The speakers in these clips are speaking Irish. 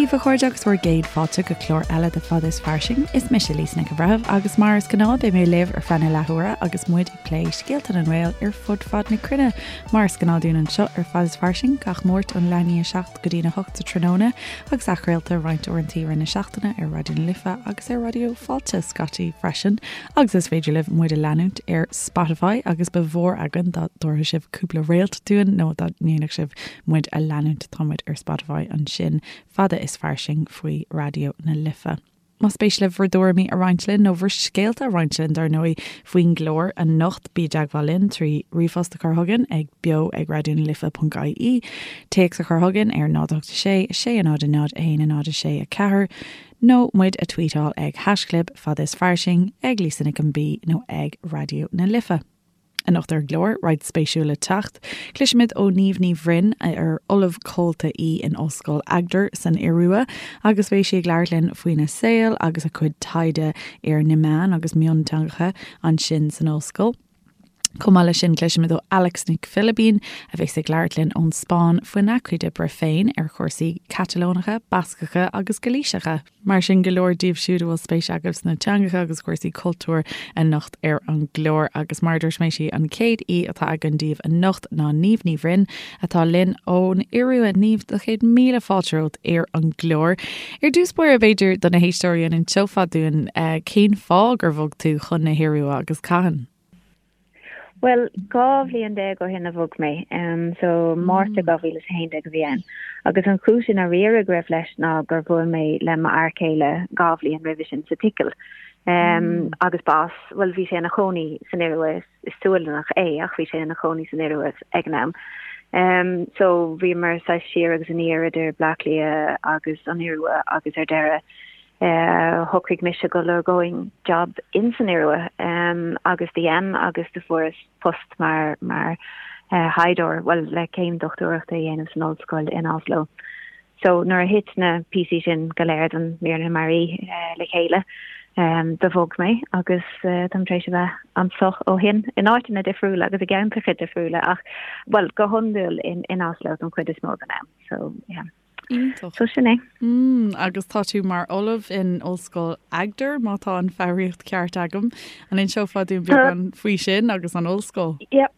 daoibh a chairde agus bhur gcéad fáilte go clár eile de Fada is Fairsing. Is mise Lisa Nic an Bhreithimh agus mar is gnáth beidh mé libh ar feadh na leathuaire agus muid ag plé scéalta na nGael ar fud fad na cruinne. Mar is gnáth dúinn anseo ar Fada is Fairsing gach Máirt ón leath i ndiaidh 7 go dtí'n 8 sa tráthnóna agus athchraolta roinnt uaireanta i rith na seachtaine ar Raidió na Life agus ar Raidió Fáilte scaití freisin agus is féidir libh muid a leanúint ar Spotify agus ba mhór againn dá dtabharfadh sibh cúpla réalt dúinn nó dá ndéanfadh sibh muid a leanúint. Tá muid ar Spotify ansin, fada is fairsing faoi Raidió na Life. Más spéis libh bhur dtuairimí a roinnt linn, nó bhur scéalta a roinnt linn, dar ndóigh, faoin gclár anocht, bí i dteagmháil linn trí ríomhphost a chur chugainn ag beo ag raidionalife.ie, téacs a chur chugainn ar 0 8 6 6 0 0 1 0 6 4, nó muid a tweetáil ag haischlib fada is fairsing, ag Lisa Nic an B nó ag Raidió na Life. Anocht ar an gclár, roinnt spéisiúil le teacht. Cloisfimid ó Niamh Ní Bhroin, ar Ollamh Comhalta í in Ollscoil Agder san Iorua, agus beidh sí ag labhairt linn faoina saol agus a cuid taighde ar na meáin agus mionteangacha ansin san ollscoil. Chomh maith leis sin, cloisfimid ó Alex Nic Philibín, a bheas ag labhairt linn ón Spáinn faoina cuid oibre féin ar chúrsaí Catalónacha, Bascacha agus Gailíseacha. Mar sin, go leor díobh siúd a bhfuil spéis agaibh sna teangacha agus cúrsaí cultúir anocht ar an gclár. Agus mar a dúirt mé, sí an chéad aoi atá againn daoibh anocht ná Niamh Ní Bhroin, atá linn ón Iorua. Niamh, do chéad míle fáilte romhat ar an gclár. Ar dtús báire, b'fhéidir, do na héisteoirí, an inseofá dúinn cén fáth gur bhog tú chun na hIorua agus cathain? Bhuel, 12 bhliain ó shin a bhog mé, so Márta 2011 a bhí ann. Agus an chúis i ndáiríre go raibh leis ná gur bhuail mé le m'fhear céile dhá bhliain roimhe sin sa tSicil. Agus ba as, bhuel, bhí sé ina chónaí san Iorua, is Sualannach é ach bhí sé ina chónaí san Iorua ag an am. So bhíomar saghas siar agus aniar idir Bleá Cliath agus an Iorua agus ar deireadh, Shocraigh mise go lorgóinn job in san Iorua agus do dhein agus do fuaireas post mar mar thaighdeoir, bhuel le céim dochtúireachta a dhéanamh san ollscoil in Oslo. So nuair a thit na píosaí sin go léir den mír na mearaí le chéile do bhog mé agus táim tar éis a bheith anso ó shin in áiteanna difriúla agus i gceantracha difriúla ach bhuel go hiondúil in Oslo don chuid is mó den am. So yeah. Iontach. So sin é. Mm, agus tá tú mar ollamh in Ollscoil Agder, má tá an foghraíocht ceart agam. An inseofá dúinn beagán faoi sin agus an ollscoil? Yeah.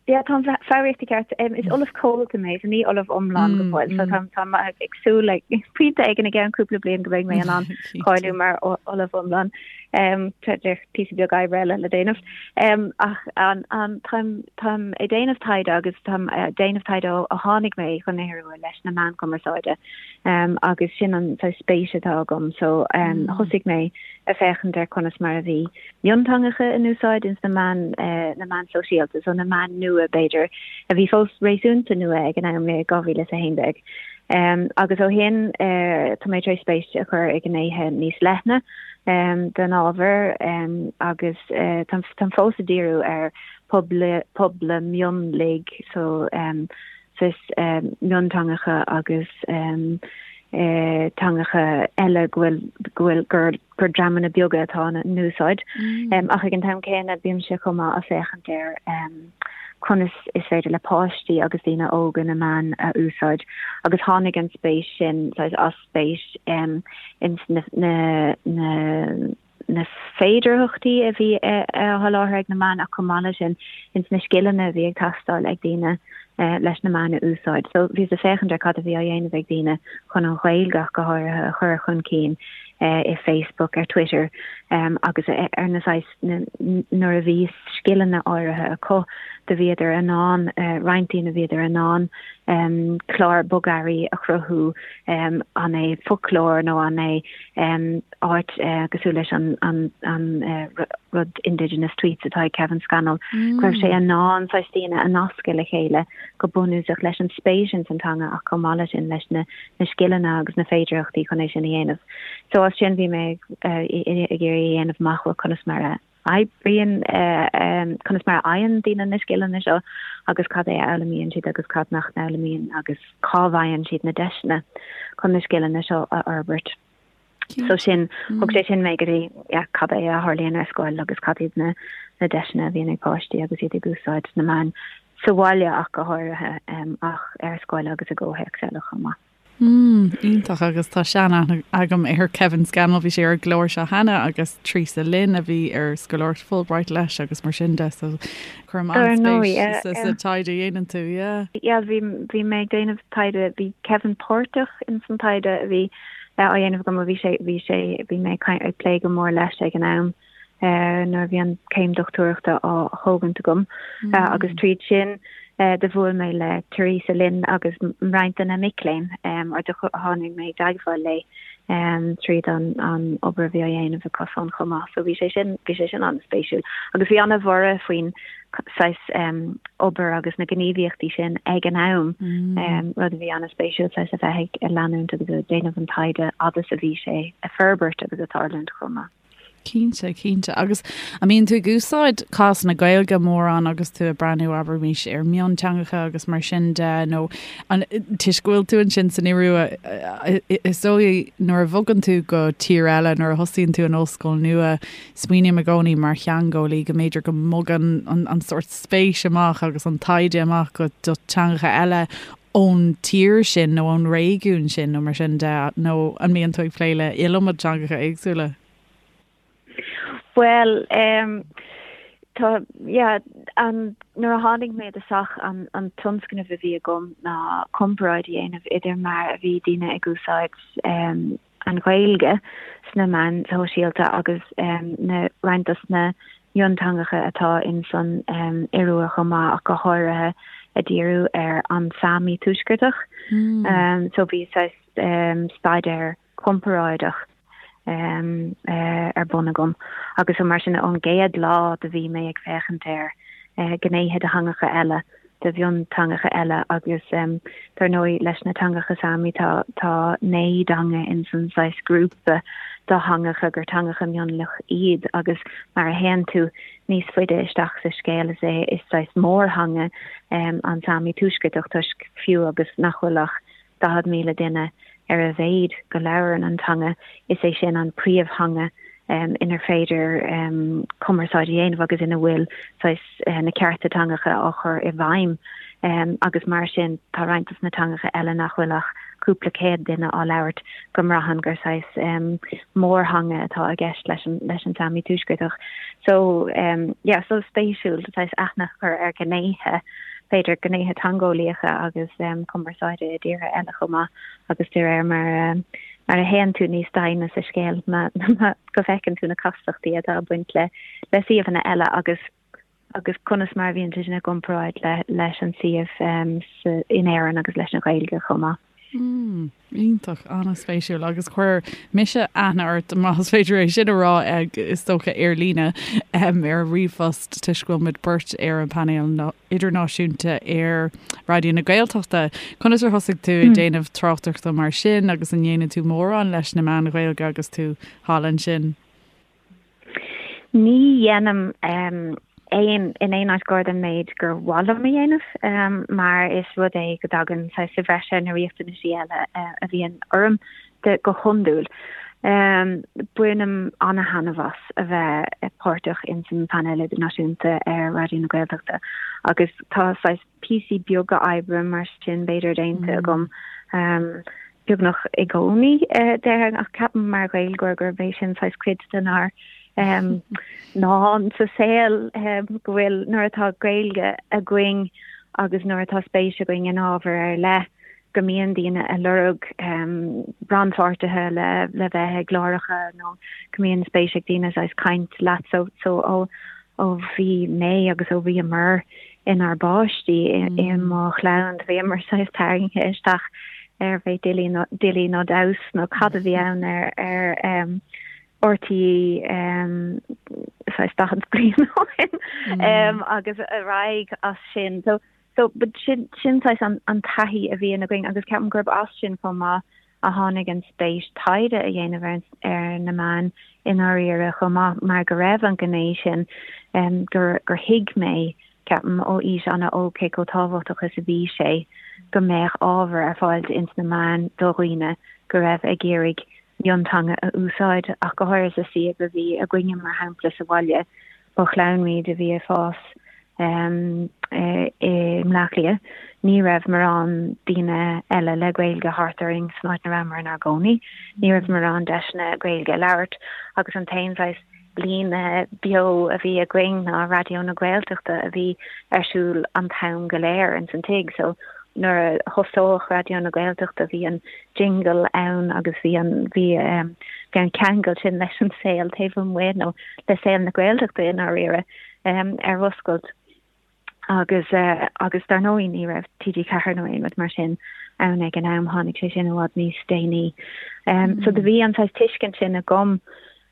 Yeah, tá an foghraíocht ceart. Um, is ollamh comhalta mé, so ní ollamh iomlán go mm, fóill. So mm. tá tá ag súil le pointe éigin i gceann cúpla bliain go mbeidh mé in ann cáiliú mar ollamh iomlán. Um, tá píosa beag oibre eile le déanamh. Um, ach an, an, táim, táim ag déanamh taighde agus táim ag déanamh taighde ó ó tháinig mé chun na hIorua leis na meáin chumarsáide um, agus sin an saghas spéis atá agam. So um, thosaigh mé ag féachaint ar conas mar a bhí mionteangacha in úsáid ins na meáin, uh, na meáin sóisialta, so na meáin nua b'fhéidir, a bhí fós réasúnta nua ag an am i 2011. Um, agus ó shin uh, tá mé tar éis spéis a chur i ngnéithe níos leithne um, den ábhar um, agus uh, táim fós ag díriú ar pobail, pobail mionlaigh so um, saghas um, mionteangacha agus um, uh, teangacha eile go bhfuil go bhfuil gur, gur dreamanna beaga atá ina n-úsáid. Mm. Um, ach ag an t-am céanna bímse chomh maith ag féachaint ar um, conas is féidir le páistí agus daoine óga na meáin a úsáid agus tháinig an spéis sin saghas as spéis um, ins na, na, na, na féidearthachtaí a bhí á sholáthar ag na meáin ach chomh maith leis sin ins na scileanna a bhí ag teastáil ag daoine leis na meáin a úsáid. So bhíos ag féachaint ar cad a bhí á dhéanamh ag daoine chun an Ghaeilge ach go háirithe a chur chun cinn i Facebook, ar Twitter agus ar na saghas nuair a bhí scileanna áirithe acu do bhíodar in ann roinnt daoine bhíodar in ann clár bogearraí a chruthú an é foclóir nó an é áit cosúil leis an an an rud Indigenous Tweets atá ag Kevin Scannell, go raibh sé in ann saghas daoine a nascadh le chéile go bunúsach leis an spéis ins an teanga ach chomh maith leis sin leis na na scileanna agus na féidearthachtaí chun é sin a dhéanamh. So as sin bhí mé ag iarraidh a dhéanamh amach bhuel conas mar a oibríonn, conas mar a fhaigheann daoine na scileanna seo agus cad é a fhoghlaimíonn siad agus cad nach n-fhoghlaimíonn agus cá bhfaigheann siad na deiseanna chun na scileanna seo a fhorbairt. So sin, thug sé sin mé go dtí yeah, cad é a tharlaíonn ar scoil agus cad iad na, na deiseanna a bhíonn ag páistí agus iad ag úsáid na meáin sa bhaile ach go háirithe, um, ach ar scoil agus i gcomhthéacs eile chomh maith. Mm, iontach agus tá sean-aithne agam ar Kevin Scannell, bhí sé ar an gclár seo cheana agus Teresa Lynn a bhí ar scoláireacht Fulbright leis agus mar sin de so cuirim an-spéis sa taighde a dhéanann tú, yeah. Yeah, bhí bhí mé ag déanamh taighde, bhí Kevin páirteach in san taighde a bhí á dhéanamh agam, bhí sé bhí sé bhí mé ag plé go mór leis ag an am. nuair a bhí an céim dochtúireachta á thógaint agam agus tríd sin do bhuail mé le Teresa Lynn agus roinnt de na mic léinn or do tháinig mé i dteagmháil léi tríd an obair a bhí á dhéanamh acusan chomh maith. So bhí sé sin bhí sé sin an-spéisiúil agus bhí an-bhorradh faoin saghas obair agus na gníomhaíochtaí sin ag an am, rud a bhí an-spéisiúil saghas a bheith ag leanúint agus ag déanamh an taighde fhad is a bhí sé ag forbairt agus ag tarlúint chomh maith. Cinnte, cinnte. Agus an mbíonn tú ag úsáid cás na Gaeilge mórán agus tú ag breathnú, abraimis, ar mhionteangacha agus mar sin de, nó an, toisc go bhfuil tú ansin san Iorua, is dóigh nuair a bhogann tú go tír eile, nuair a thosaíonn tú in ollscoil nua, smaoiním i gcónaí mar theangeolaí go mb'fhéidir go mbogann an, an sórt spéis amach agus an taighde amach go do teangacha eile ón tír sin nó ón réigiún sin nó mar sin de, nó an mbíonn tú ag plé le iliomad teangacha éagsúla? Bhuel, em, tá, yeah, an, nuair a tháinig mé i dtosach, an, an tionscnamh a bhí agam ná comparáid a dhéanamh idir mar a bhí daoine ag úsáid, em, an Ghaeilge sna meáin shóisialta agus na roinnt dos na mionteangacha atá in san Iorua chomh maith ach go háirithe ag díriú ar an Sámi Tuaisceartach. So bhí saghas staidéar comparáideach ar bun agam agus so mar sin ón gcéad lá do bhí mé ag féachaint ar gnéithe de theangacha eile de mhionteangacha eile agus dar ndóigh leis na teangacha Sámi tá tá 9 dteanga in san saghas grúpa de theangacha gur teangacha mionlach iad agus mar a théann tú níos faide isteach sa scéal is é is saghas mórtheanga an Sámi Tuaisceartach toisc fiú agus nach bhfuil ach 40,000 duine ar a mhéad go labhrann an teanga, is é sin an príomhtheanga inar féidir cumarsáid a dhéanamh agus ina bhfuil saghas na cearta teangacha á chur i bhfeidhm agus mar sin tá roinnt dos na teangacha eile nach bhfuil ach cúpla céad duine á labhairt go mbraitheann gur saghas mórtheanga atá i gceist leis an leis an Sámi Tuaisceartach. So yeah, so spéisiúil saghas aithne a chur ar ghnéithe b'fhéidir gnéithe teangeolaíocha agus cumarsáide i dtíortha eile chomh maith agus de réir mar mar a théann tú níos doimhne sa scéal go bhfeiceann tú na castachtaí atá ag baint le le suíomhanna eile agus agus conas mar a bhíonn sé sin i gcomparáid le leis an suíomh in Éirinn agus leis an Ghaeilge chomh maith. Mm, iontach, an-spéisiúil agus chuir mise aithne ort, más féidir é sin a rá, is dócha ar líne, ar ríomhphost toisc go bhfuil muid beirt ar an bpainéal idirnáisiúnta ar Raidió na Gaeltachta. Conas ar thosaigh tú ag déanamh tráchtaireachta mar sin agus an ndéanann tú mórán leis na meáin Ghaeilge agus tú thall ansin? Ní dhéanaim aon in aon áit gar don méid gur mhaith liom a dhéanamh mar is rud é go dtagann saghas sa bhreis ar na riachtanaisí eile a bhíonn orm de go hiondúil. Bainim ana-thaitneamh as a bheith páirteach ins an phainéal idirnáisiúnta ar Raidió na Gaeltachta agus tá saghas píosaí beaga oibre mar sin b'fhéidir déanta agam beagnach i gcónaí déarfainn ach ceapaim mar Ghaeilgeoir gurb é sin saghas cuid denár ndán sa saol go bhfuil nuair atá Gaeilge againn agus nuair atá spéis againn in ábhar ar leith go mbíonn daoine ag lorg rannpháirtithe le le bheith i gcláracha nó go mbíonn spéis ag daoine saghas caint leat so so ó ó bhí mé agus ó bhíomar inár bpáistí i mo chlann bhíomar saghas tarraingthe isteach ar bheith Dilí nó Dilí nó Damhas nó cad a bhí ann ar ar um, RTÉ um, saghas 40 bliain ó shin um, agus ar aghaidh as sin. So, so but sin, sin saghas an, an taithí a bhíonn againn agus ceapaim gurb as sin chomh maith a tháinig an spéis taighde a dhéanamh ar, ar na meáin i ndáiríre chomh maith mar go raibh an ghné sin um, gur, gur thuig mé ceapaim ó aois an-óg cé chomh tábhachtach is a bhí sé go mbeadh ábhar ar fáil ins na meáin do dhaoine go raibh ag iarraidh mionteanga a úsáid ach go háirithe sa suíomh a bhí againne mar shampla sa bhaile. Ba chlann muid a bhí ag fás. I mBleá Cliath, ní raibh morán daoine eile le Gaeilge thart orainn san áit ina rabhamar inár gcónaí. Ní raibh morán deiseanna Gaeilge a labhairt agus an t-aon saghas líne beo a bhí againn ná Raidió na Gaeltachta a bhí ar siúl an t-am go léir ins an tigh. So nuair a thosódh Raidió na Gaeltachta bhí an jingle ann agus bhí an bhí bhí an ceangal sin leis an saol taobh amuigh nó le saol na Gaeltachta i ndáiríre ar oscailt. Agus agus dar ndóigh ní raibh TG4 nó aon rud mar sin ann ag an am, tháinig sé sin i bhfad níos déanaí. So do bhí an saghas tuiscint sin agam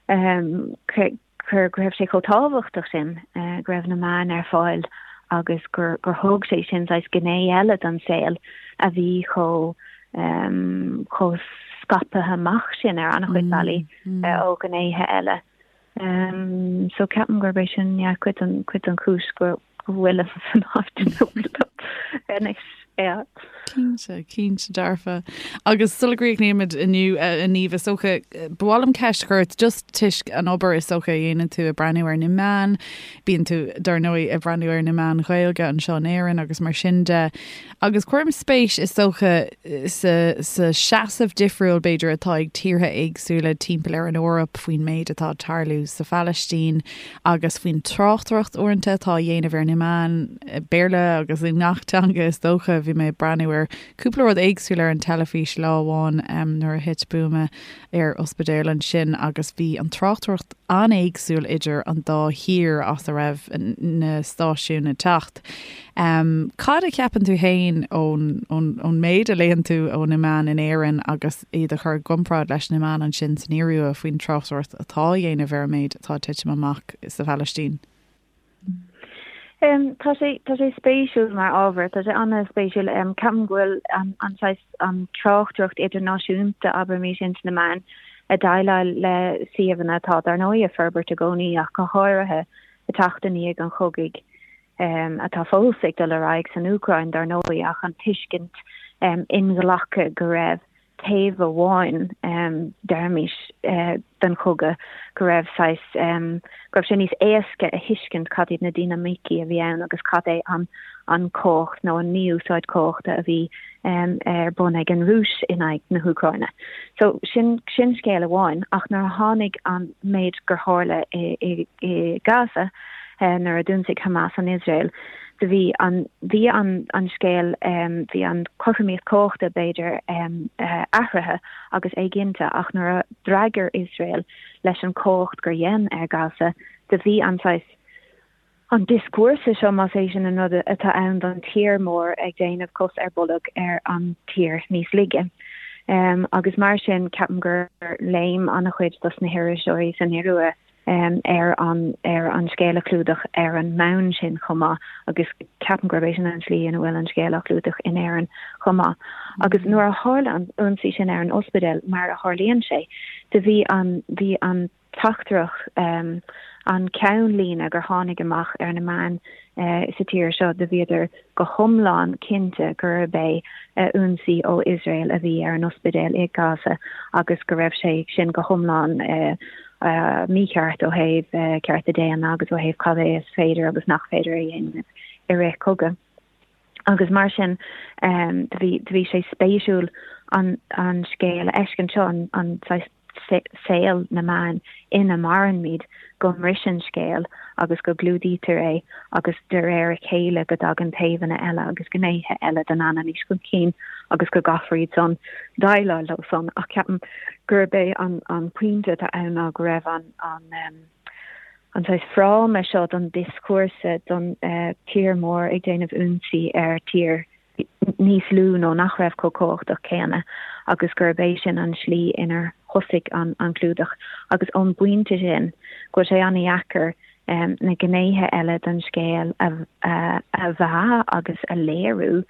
gur go raibh sé chomh tábhachtach sin go raibh na meáin ar fáil agus gur gur thug sé sin saghas gné eile don saol a bhí chomh chomh scaipthe amach sin ar an-chuid bealaí ó ghnéithe eile. So ceapaim gurb é sin yeah cuid den cuid den chúis go go bhfuilim san áit ina bhfuilim anois yeah. Cinnte, cinnte dearfa. Agus sula gcríochnaímid inniu a Niamh is dócha, ba mhaith liom ceist a chur ort just toisc an obair is dócha a dhéanann tú ag breathnú ar na meáin, bíonn tú dar ndóigh ag breathnú ar na meáin Ghaeilge anseo in Éirinn agus mar sin de. Agus cuirim spéis, is dócha, sa seasamh difriúil, b'fhéidir, atá ag tíortha éagsúla timpeall ar an Eoraip faoin méid atá ag tarlú sa Phalaistín agus faoin tráchtaireacht uaireanta atá á dhéanamh ar na meáin, Béarla agus i ngach teanga, is dócha. Bhí mé ag breathnú ar cúpla rud éagsúil ar an teilifís lá amháin nuair a thit buama ar ospidéal ansin agus bhí an tráchtaireacht an-éagsúil idir an dá thír as a raibh na stáisiúin ag teacht. Cad a cheapann tú féin ón ón méid a léann tú ó na meáin in Éirinn agus iad a chur i gcomparáid leis na meáin ansin san Iorua faoin tráchtaireacht atá á dhéanamh ar an méid atá ag titim amach sa Phalaistín? Tá sé tá sé spéisiúil mar ábhar, tá sé an-spéisiúil. Ceapaim go bhfuil an an saghas an tráchtaireacht idirnáisiúnta, abraimis, ins na meáin ag déileáil le suíomhanna atá dar ndóigh ag forbairt i gcónaí ach go háirithe ag teacht i ndiaidh an chogaidh atá fós ag dul ar aghaidh san Úcráin dar ndóigh ach an tuiscint inghlactha go raibh taobh amháin, deirimis, den chogadh, go raibh saghas, go raibh sé níos éasca a thuiscint cad iad na dinimicí a bhí ann agus cad é an an chumhacht nó an mí-úsáid cumhachta a bhí ar bun ag an Rúis in aghaidh na hÚcráine. So sin sin scéal amháin ach nuair a tháinig an méid gur tharla i i i Gaza, nuair a d'ionsaigh Hamas an Iosrael, do bhí an, bhí an, an scéal, bhí an chothromaíocht cumhachta, b'fhéidir, athraithe agus éiginnte ach nuair a d'fhreagair Iosrael leis an chumhacht gur dhein ar Gaza, do bhí an saghas, an dioscúrsa seo, más é sin an rud atá ann don tír mór ag déanamh cos ar bolg ar an tír níos laige. Agus mar sin, ceapaim gur léim an-chuid dos na hiriseoirí san Iorua ar an ar an scéal a chlúdach ar an mbonn sin chomh maith agus ceapaim gurb é sin an tslí ina bhfuil an scéal á chlúdach in Éirinn chomh maith. Agus nuair a tharla an ionsaí sin ar an ospidéal, mar a tharlaíonn sé, do bhí an bhí an teachtaireacht an ceannlíne gur tháinig amach ar na meáin sa tír seo, do bhíodar go hiomlán cinnte gurb é ionsaí ó Iosrael a bhí ar an ospidéal i Gaza agus go raibh sé sin go hiomlán mícheart ó thaobh cearta daonna agus ó thaobh cad é is féidir agus nach féidir a dhéanamh i rith cogadh. Agus mar sin do bhí do bhí sé spéisiúil an an scéal a fheiscint seo, an an saghas saol na meán ina mairimid, go mbriseann scéal agus go gclúdaítear é agus de réir a chéile go dtagann taobhanna eile agus gnéithe eile den anailís chun cinn agus go gcaithfear iad san déileáil leo san. Ach ceapaim gurb é an an pointe atá ann ná go raibh an an an saghas fráma seo don dioscúrsa don tír mór ag déanamh ionsaí ar tír níos lú nó nach raibh chomh cumhachtach céanna agus gurb é sin an slí inar thosaigh an an clúdach agus ón bpointe sin go bhfuil sé an-dheacair na gnéithe eile den scéal a a mheá agus a léiriú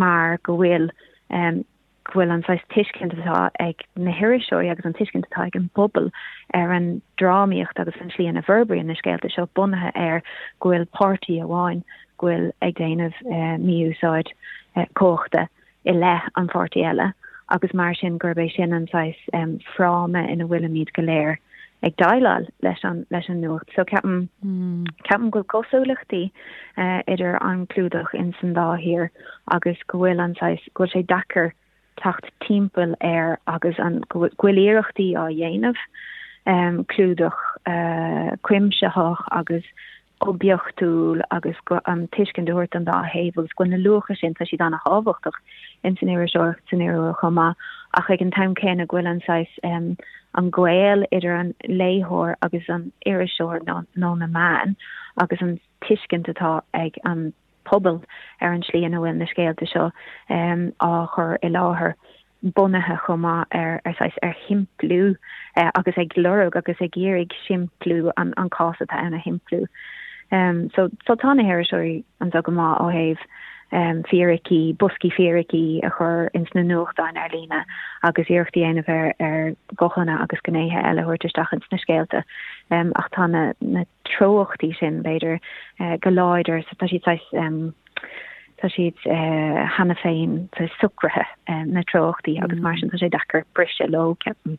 mar go bhfuil go bhfuil an saghas tuiscint atá ag na hiriseoirí agus an tuiscint atá ag an bpobal ar an drámaíocht agus an tslí ina bhforbraíonn na scéalta seo bunaithe ar go bhfuil páirtí amháin go bhfuil ag déanamh mí-úsáid cumhachta i leith an pháirtí eile agus mar sin gurb é sin an saghas fráma ina bhfuilimid go léir. ag déileáil leis an leis an nuacht. So ceapaim ceapaim go bhfuil cosúlachtaí idir an clúdach in san dá thír agus go bhfuil an saghas go bhfuil sé deacair teacht timpeall air agus an go bhfuil iarrachtaí á dhéanamh clúdach cuimsitheach agus oibiachtúil agus an tuiscint a thabhairt don dá thaobh agus go bhfuil na luacha sin, tá siad an-thábhachtach in san iriseoireacht san Iorua chomh maith ach ag an t-am céanna go bhfuil an saghas an gaol idir an léitheoir agus an iriseoir nó na meáin agus an tuiscint atá ag an pobal ar an tslí ina bhfuil na scéalta seo á chur i láthair bunaithe chomh maith ar ar saghas ar shimpliú agus ag lorg agus ag iarraidh simpliú an an cás atá ann a shimpliú. So so tá na hiriseoirí anseo go maith ó thaobh fíricí, boscaí fíricí a chur ins na nuachtáin ar líne agus iarracht a dhéanamh ar ar ghuthanna agus gnéithe eile a thabhairt isteach ins na scéalta. Ach tá na na treochtaí sin, b'fhéidir, go láidir, tá siad saghas, tá siad cheana féin saghas socraithe, na treochtaí, agus mar sin tá sé deacair briseadh leo, ceapaim.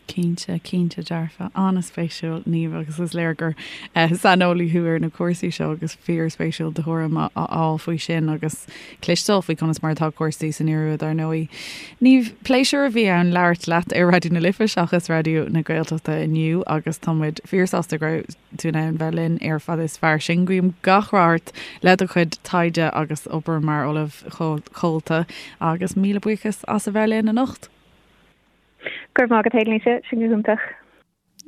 Cinnte, cinnte dearfa. An-spéisiúil, Niamh, agus is léir gur saineolaí thú ar na cúrsaí seo agus fíorspéisiúil do thuairim a fháil faoi sin agus cloisteáil faoi conas mar atá cúrsaí san Iorua, dar ndóigh. Niamh, pléisiúr a bhí ann labhairt leat ar Raidió na Life seachas Raidió na Gaeltachta inniu agus tá muid fíorshásta go raibh tú in ann bheith linn ar Fada is Fairsing. Guím gach rath ort le do chuid taighde agus obair mar Ollamh Comhalta agus míle buíochas as a bheith linn anocht. Go raibh maith agat, a Lisa, sin go hiontach.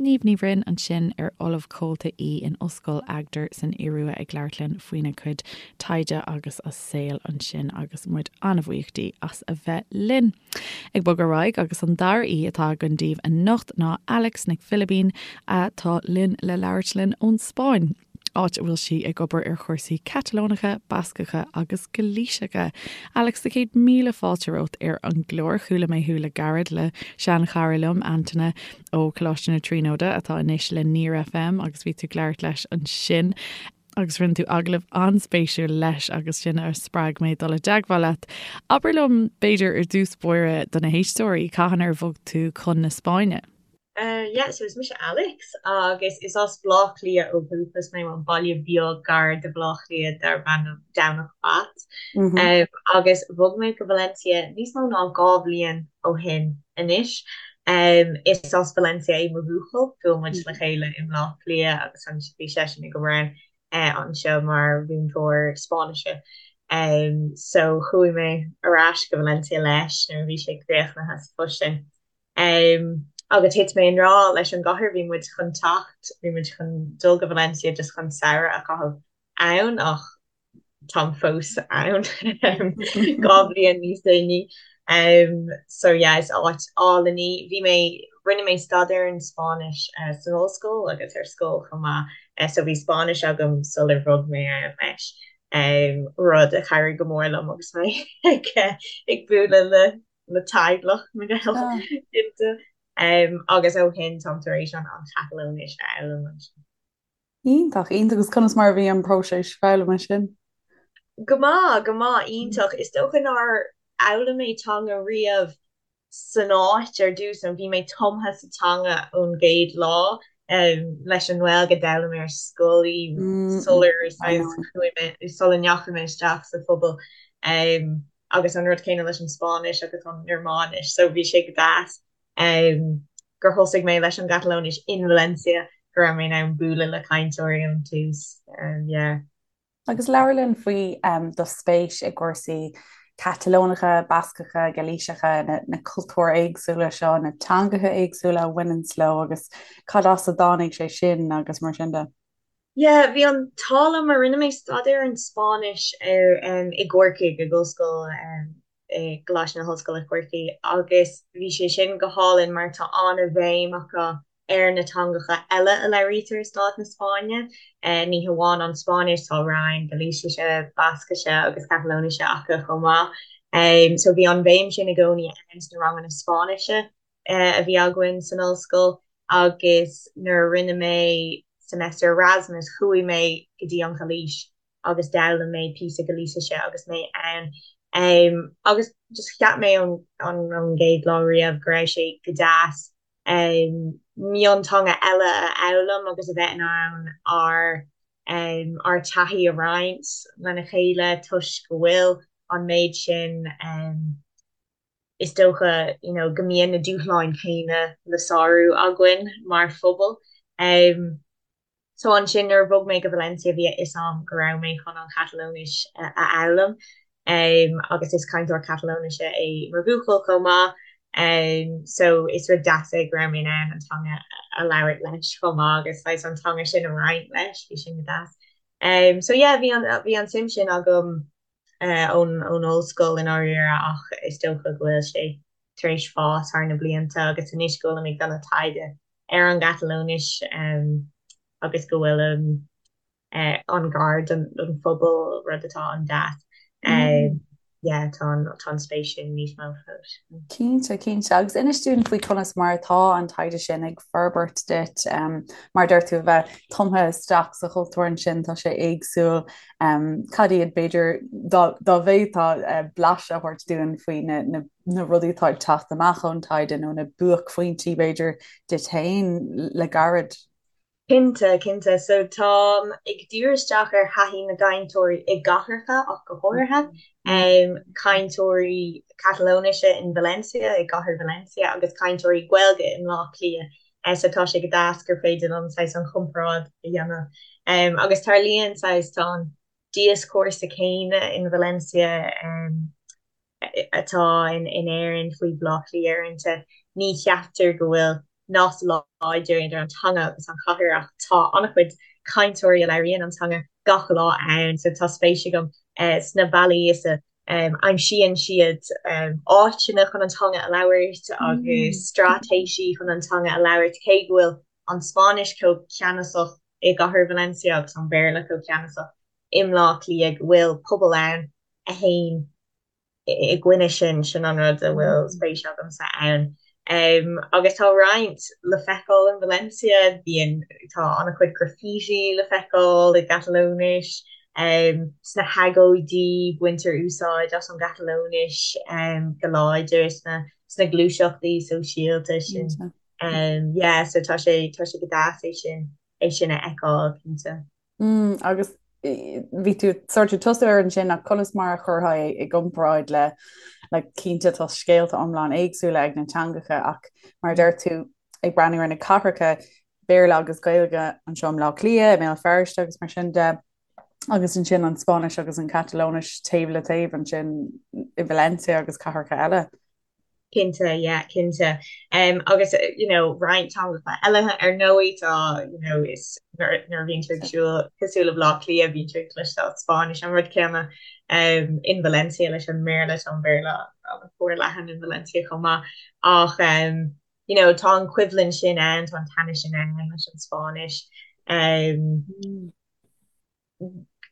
Niamh Ní Bhroin ansin ar Ollamh Comhalta í in Ollscoil Agder san Iorua ag labhairt linn faoina cuid taighde agus a saol ansin agus muid an-bhuíoch di as a bheith linn. Ag bogadh ar aghaidh agus an dara aoi atá againn daoibh anocht ná Alex Nic Philibín atá linn le labhairt linn ón Spáinn. áit a bhfuil sí ag obair ar chúrsaí Catalónacha, Bascacha agus Gailíseacha. Alex, sa chéad míle fáilte romhat ar an gclár. Chuala mé thú le gairid le seanchara liom, Antaine ó Choláiste na Tríonóide, atá anois le Near FM agus bhí tú ag labhairt leis ansin agus rinne tú agallamh an-spéisiúil leis agus sin a spreag mé dul i dteagmháil leat. Abair liom, b'fhéidir, ar dtús báire do na héisteoirí, cathain ar bhog tú chun na Spáinne? Yeah, so is mise Alex agus is as Bleá Cliath ó dhúchas mé, bhuel baile beag gar do Bhleá Cliath darb ainm Domhnach Bat. Agus bhog mé go Valencia níos mó ná 2 bhliain ó shin anois. Is as Valencia é mo bhuachaill, bhuail muid le chéile i mBleá Cliath agus bhí seisean ag obair ann anseo mar mhúinteoir Spáinnise. So chuaigh mé ar ais go Valencia leis nuair a bhí sé críochnaithe sa phost sin. Agus thit mé i ngrá leis an gcathair, bhí muid chun teacht, bhí muid chun dul go Valencia just chun samhradh a chaitheamh ann ach táim fós ann 2 bhliain níos déanaí. So yeah, is áit álainn í. Bhí mé, rinne mé staidéar ar an Spáinnis san ollscoil agus ar scoil chomh maith, so bhí Spáinnis agam sular bhog mé ann leis, rud a chabhraigh go mór liom agus mé ag bualadh le le teaghlach na nGael cinnte. Agus ó shin táim tar éis an Chatalóinis a fhoghlaim ansin. Iontach, iontach. Agus conas mar a bhí an próiseas foghlama sin? Go maith, go maith, iontach. Is dócha nár fhoghlaim mé teanga riamh san áit ar dtús, nó bhí mé tumtha sa teanga ón gcéad lá. Leis an nGaeilge d'fhoghlaim mé ar scoil í sular chuaigh mé, sula ndeachaigh mé isteach sa phobal. Agus an rud céanna leis an Spáinnis agus an Ghearmáinis, so bhí sé go deas gur thosaigh mé leis an gCatalóinis in Valencia, go raibh mé in ann bualadh le cainteoirí ón tús, yeah. Agus labhair linn faoi do spéis i gcúrsaí Catalónacha, Bascacha, Gailíseacha, na cultúir éagsúla seo, na teangacha éagsúla a bhaineanns leo agus cad as a dtáinig sé sin agus mar sin de. Yeah, bhí an t-ádh liom mar rinne mé staidéar ar an Spáinnis ar i gCorcaigh, ag Ollscoil i gColáiste na hOllscoile Corcaigh agus bhí sé sin go hálainn mar tá an-bhéim acu ar na teangacha eile a labhraítear i stát na Spáinne, ní hamháin an Spáinnis, tá roinn Gailísise, Bascaise agus Catalóinise acu chomh maith. So bhí an bhéim sin i gcónaí ann sna ranganna Spáinnise. a bhí againn san ollscoil agus nuair a rinne mé semester Erasmus chuaigh mé go dtí an Ghailís agus d'fhoghlaim mé píosa Gailísise agus mé ann. Agus just cheap mé ón gcéad lá riamh go raibh sé go deas. Mionteanga eile a fhoghlaim agus a bheith in ann ár ár dtaithí a roinnt lena chéile toisc go bhfuil an méid sin is dócha you know go mbíonn na dúshláin chéanna le sárú againn mar phobal. So ansin nuair a bhog mé go Valencia bhí a fhios a'm go raibh mé chun an Chatalóinis a fhoghlaim agus is cainteoir Catalóinise é mo bhuachaill chomh maith so is rud deas é go raibh mé in ann an teanga a labhairt leis chomh maith agus saghas an teanga sin a roinnt leis, bhí sin go deas. So yeah bhí an bhí an suim sin agam ón ón ollscoil i ndáiríre ach is dócha go bhfuil sé tar éis fás thar na blianta agus anois go bhfuilim ag déanamh taighde ar an gCatalóinis agus go bhfuilim an-ghar don phobal, rud atá an-deas. Yeah, tá an tá an spéis sin níos mó fós. Cinnte, cinnte. Agus inis dúinn faoi conas mar atá an taighde sin ag forbairt duit. Mar a deir tú, a bheith tumtha isteach sa chultúr ansin, tá sé éagsúil. Cad iad, b'fhéidir, dá bhféadfá blaiseadh a thabhairt dúinn faoi na na rudaí atá ag teacht amach ón taighde nó na buaicphointí, b'fhéidir, duit féin le gairid? Cinnte, cinnte. So táim ag díriú isteach ar thaithí na gcainteoirí i gcathracha ach go háirithe, cainteoirí Catalóinise in Valencia, i gcathair Valencia, agus cainteoirí Gaeilge i mBleá Cliath. So tá sé go deas gur féidir liom saghas an chomparáid a dhéanamh. Agus tarlaíonn saghas, tá an dioscúrsa céanna in Valencia, atá in Éirinn faoi Bhaile Átha Cliath uaireanta. Ní cheaptar go bhfuil nasc láidir idir an teanga agus an chathair ach tá an-chuid cainteoirí a labhraíonn an teanga gach lá ann so tá spéis agam sna bealaí is a aimsíonn siad áiteanna chun an teanga a labhairt agus straitéisí chun an teanga a labhairt cé go bhfuil an Spáinnis chomh ceannasach i gcathair Valencia agus an Béarla chomh ceannasach i mBleá Cliath go bhfuil pobal ann a théann i gcoinne sin, sin an rud a bhfuil spéis agamsa ann. Agus tá roinnt le feiceáil in Valencia, bíonn, tá an-chuid graffiti le feiceáil i gCatalóinis, sna hagóidí baintear úsáid as an gCatalóinis go láidir sna sna gluaiseachtaí sóisialta sin. Yeah, so tá sé, tá sé go deas é sin, é sin a fheiceáil, cinnte. Mm, agus bhí tú sort of tosú air ansin ach conas mar a chuirfeá é i gcomparáid le like, cinnte tá scéalta iomlán éagsúla ag na teangacha ach mar a deir tú ag breathnú ar na cathracha Béarla agus Gaeilge anseo i mBleá Cliath, i mBéal Feirste agus mar sin de agus ansin an Spáinnis agus an Catalóinis taobh le taobh ansin i Valencia agus cathracha eile. Cinnte, yeah, cinnte. Um, agus, you know, roinnt teangacha eile ar ndóigh tá, you know, is nuair a bhíonn tú ag siúl cosúil le Bleá Cliath bíonn tú ag cloisteáil Spáinnis an rud céanna um, in Valencia leis an mBéarla tá an Béarla an-fhorleathan in Valencia chomh maith ach um, you know, tá an choimhlint sin ann, tá an teannas sin ann leis an Spáinnis. Um, mm.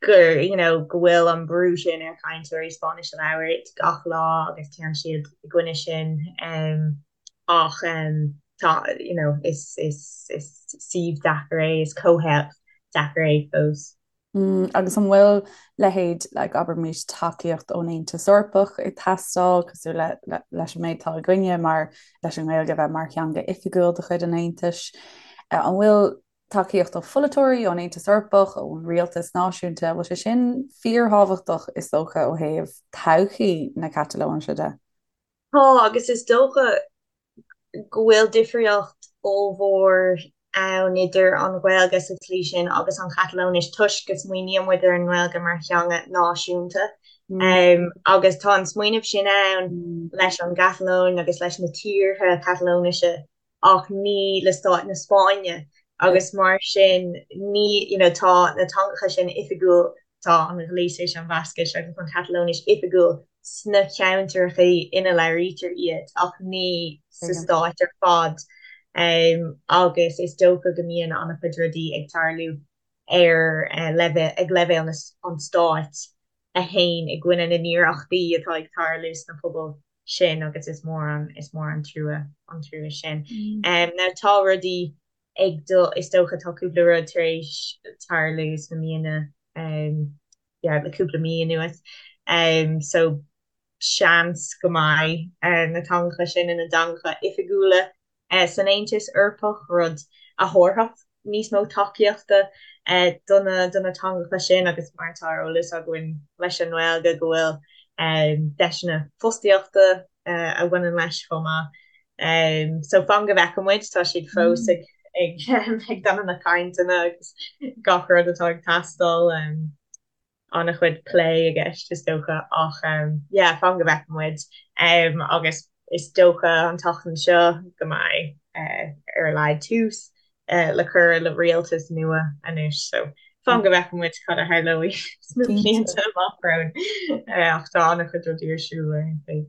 gur you know go bhfuil an brú sin ar chainteoirí Spáinnis a labhairt gach lá agus téann siad i gcoinne sin um, ach um, tá you know is is is suíomh deacair é is comhthéacs deacair é fós. Mm, agus an bhfuil leithéid like, abraimis tacaíocht ón Aontas Eorpach ag teastáil cosúil le, le, leis an méid atá againne mar leis an nGaeilge a bheith mar theanga oifigiúil de chuid an Aontais. Uh, an bhfuil tacaíocht ó pholaiteoirí, ón Aontas Eorpach, ón rialtas náisiúnta, bhfuil sé sin fíorthábhachtach is dócha ó thaobh todhchaí na Catalóinise de? Tá, agus is dócha go bhfuil difríocht ollmhór ann idir an Ghaeilge sa tslí sin agus an Chatalóinis toisc go smaoiníonn muid ar an nGaeilge mar theanga náisiúnta. Agus tá an smaoineamh sin ann leis an gCatalóin agus leis na tíortha Catalóinise ach ní le stát na Spáinne agus mar sin ní you know tá na teangacha sin oifigiúil, tá an Ghailísis, an Bhascais agus an Chatalóinis oifigiúil sna ceantracha ina labhraítear iad ach ní sa stát ar fad agus is dócha go mbíonn an-chuid rudaí ag tarlú ar leibhéal ag leibhéal an stáit a théann i gcoinne na n-iarrachtaí atá ag tarlú sna pobail sin agus is mór an is mór an trua an trua sin. Now tá rudaí ag dul is dócha tá cúpla rud tar éis tarlú sna míonna yeah le cúpla mí anuas so seans go mbeidh na teangacha sin ina dteangacha oifigiúla. san Aontas Eorpach, rud a thabharfadh níos mó tacaíochta do na do na teangacha sin agus mar atá ar eolas againn leis an nGaeilge go bhfuil deiseanna fostaíochta a bhaineann leis chomh maith. So fan go bhfeicfidh muid, tá siad fós ag ag ag déanamh na cainteanna agus gach rud atá ag teastáil. An-chuid plé i gceist is dócha ach yeah fan go bhfeicfidh muid agus is dócha an tseachtain seo go mbeidh ar a laghad tús le cur le rialtas nua anois so fan go bhfeicfidh muid cad a tharlóidh sna blianta amach romhainn ach tá an-chuid rudaí ar siúl ar aon chaoi.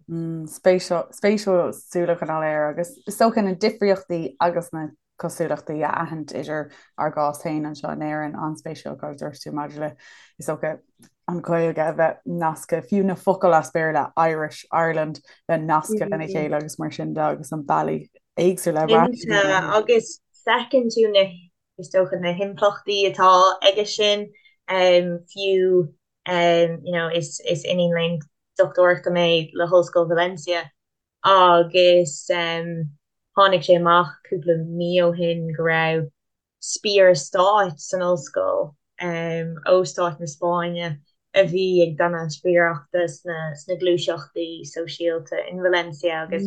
Spéisiúil súil a choinneáil air agus is dócha na difríochtaí agus na cosúlachtaí a aithint idir ár gcás féin anseo in Éirinn, an-spéisiúil cad a dúirt tú maidir le, is dócha, an Ghaeilge a bheith nasctha, fiú na focail as Béarla, Irish, Ireland, bheith nasctha lena chéile agus mar sin de agus an bealaí éagsúla a Cinnte, agus feiceann tú na, is dócha, na himpleachtaí atá aige sin, fiú, you know, is iníon léinn dochtúireachta mé le hOllscoil Valencia agus tháinig sé amach cúpla mí ó shin go raibh spiaire stáit san ollscoil ó stát na Spáinne a bhí ag déanamh spiaireachta sna gluaiseachtaí sóisialta in Valencia agus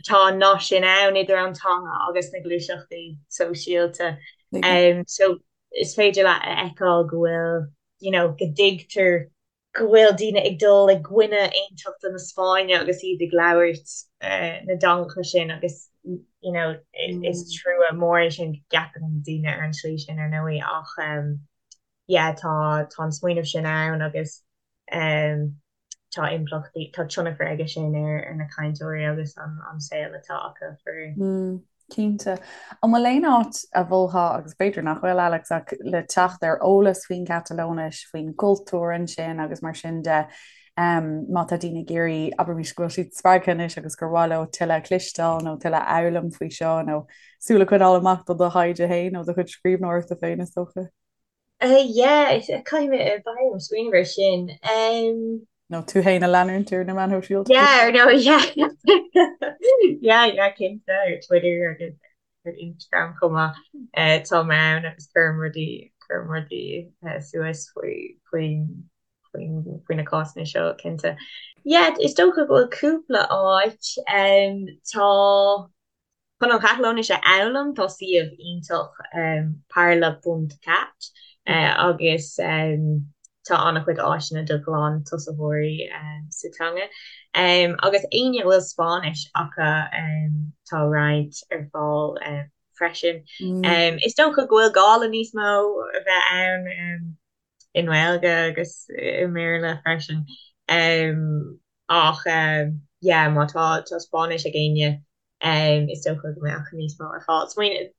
tá an nasc sin ann idir an teanga agus na gluaiseachtaí sóisialta. So is féidir leat a fheiceáil go bhfuil, you know, go dtuigtear go bhfuil daoine ag dul i gcoinne aontachta na Spáinne agus iad ag labhairt na dteangacha sin agus you know is trua mór é sin go gceapann daoine ar an tslí sin ar ndóigh ach yeah tá tá an smaoineamh sin ann agus tá impleachtaí tá tionchar aige sin ar ar na cainteoirí agus an an saol atá acu faraor. Cinnte. An bhfuil aon áit a mholfá, agus b'fhéidir nach bhfuil, Alex, ach le teacht ar eolas faoin gCatalóinis, faoin gcultúr ansin agus mar sin de, má tá daoine ag iarraidh, abraimis go bhfuil siad spreagtha anois agus gur mhaith leo tuilleadh a chloisteáil nó tuilleadh a fhoghlaim faoi seo nó súil a choinneáil amach do do thaighde féin nó do chuid scríbhneoireachta féin, is dócha? Yeah, caithfidh mé, beidh orm smaoineamh air sin. Nó tú féin a leanúint ar na meáin shóisialta. Yeah, ar ndóigh, yeah. Yeah, yeah, cinnte, ar Twitter agus ar Instagram chomh maith. Tá mé ann agus cuirim rudaí, cuirim rudaí suas faoi, faoi, faoi, faoi na cásanna seo, cinnte. Yeah, is dócha go bhfuil cúpla áit. Tá. Chun an Chatalóinis a fhoghlaim tá suíomh iontach parla ponc cat agus tá an-chuid áiseanna do ghlan-tosaitheoirí sa teanga. Agus éinne a bhfuil Spáinnis acu tá roinnt ar fáil freisin. Is dócha go bhfuil gá le níos mó a bheith ann i nGaeilge agus i mBéarla freisin. Ach yeah má tá Spáinnis ag éinne Is dócha go mbeadh níos mó ar fáil. Smaoineamh,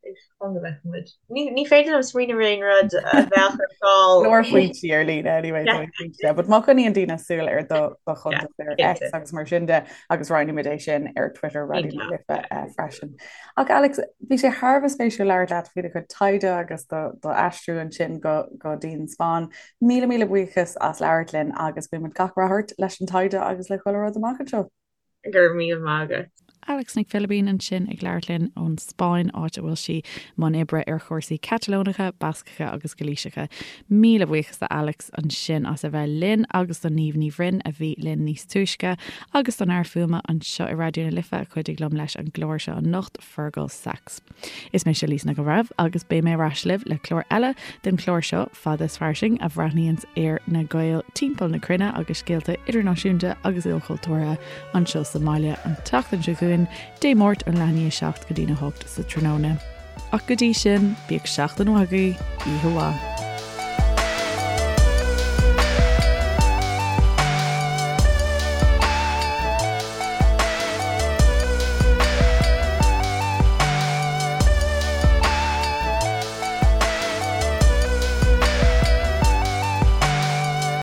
fan go bhfeicfidh muid. Ní féidir liom smaoineamh ar aon rud a bheadh ar fáil. Leor foinsí ar líne anyway, yeah. cinnte. But má choinníonn daoine súil ar do do chuntas ar X agus mar sin de agus roinnfimid é sin ar Twitter Raidió na Life eh, freisin. Ach Alex, bhí sé thar a bheith spéisiúil labhairt leat faoi do chuid taighde agus do do aistriú ansin go go dtí an Spáinn. Míle míle buíochas as labhairt linn agus guímid gach rath ort leis an taighde agus le chuile rud amach anseo. Go raibh míle maith agat. Alex Nic Philibín ansin ag labhairt linn ón Spáinn, áit a bhfuil sí i mbun oibre ar chúrsaí Catalónacha, Bascacha agus Gailíseacha. Míle buíochas do Alex ansin as a bheith linn agus do Niamh Ní Bhroin a bhí linn níos túisce agus don fhear fuaime anseo i Raidió na Life a chuidigh liom leis an gclár seo anocht, Fergal Sachs. Is mise Lisa Nic an Bhreithimh agus beidh mé ar ais libh le clár eile den chlár seo, Fada is Fairsing, a bhreathnaíonns ar na Gaeil timpeall na cruinne agus scéalta idirnáisiúnta agus ilchultúrtha anseo sa mbaile an tseachtain seo chugainn, Dé Máirt ón leath i ndiaidh a 7 go dtí'n 8 sa tráthnóna. Ach go dtí sin, bíodh seachtain mhaith agaibh, oíche mhaith.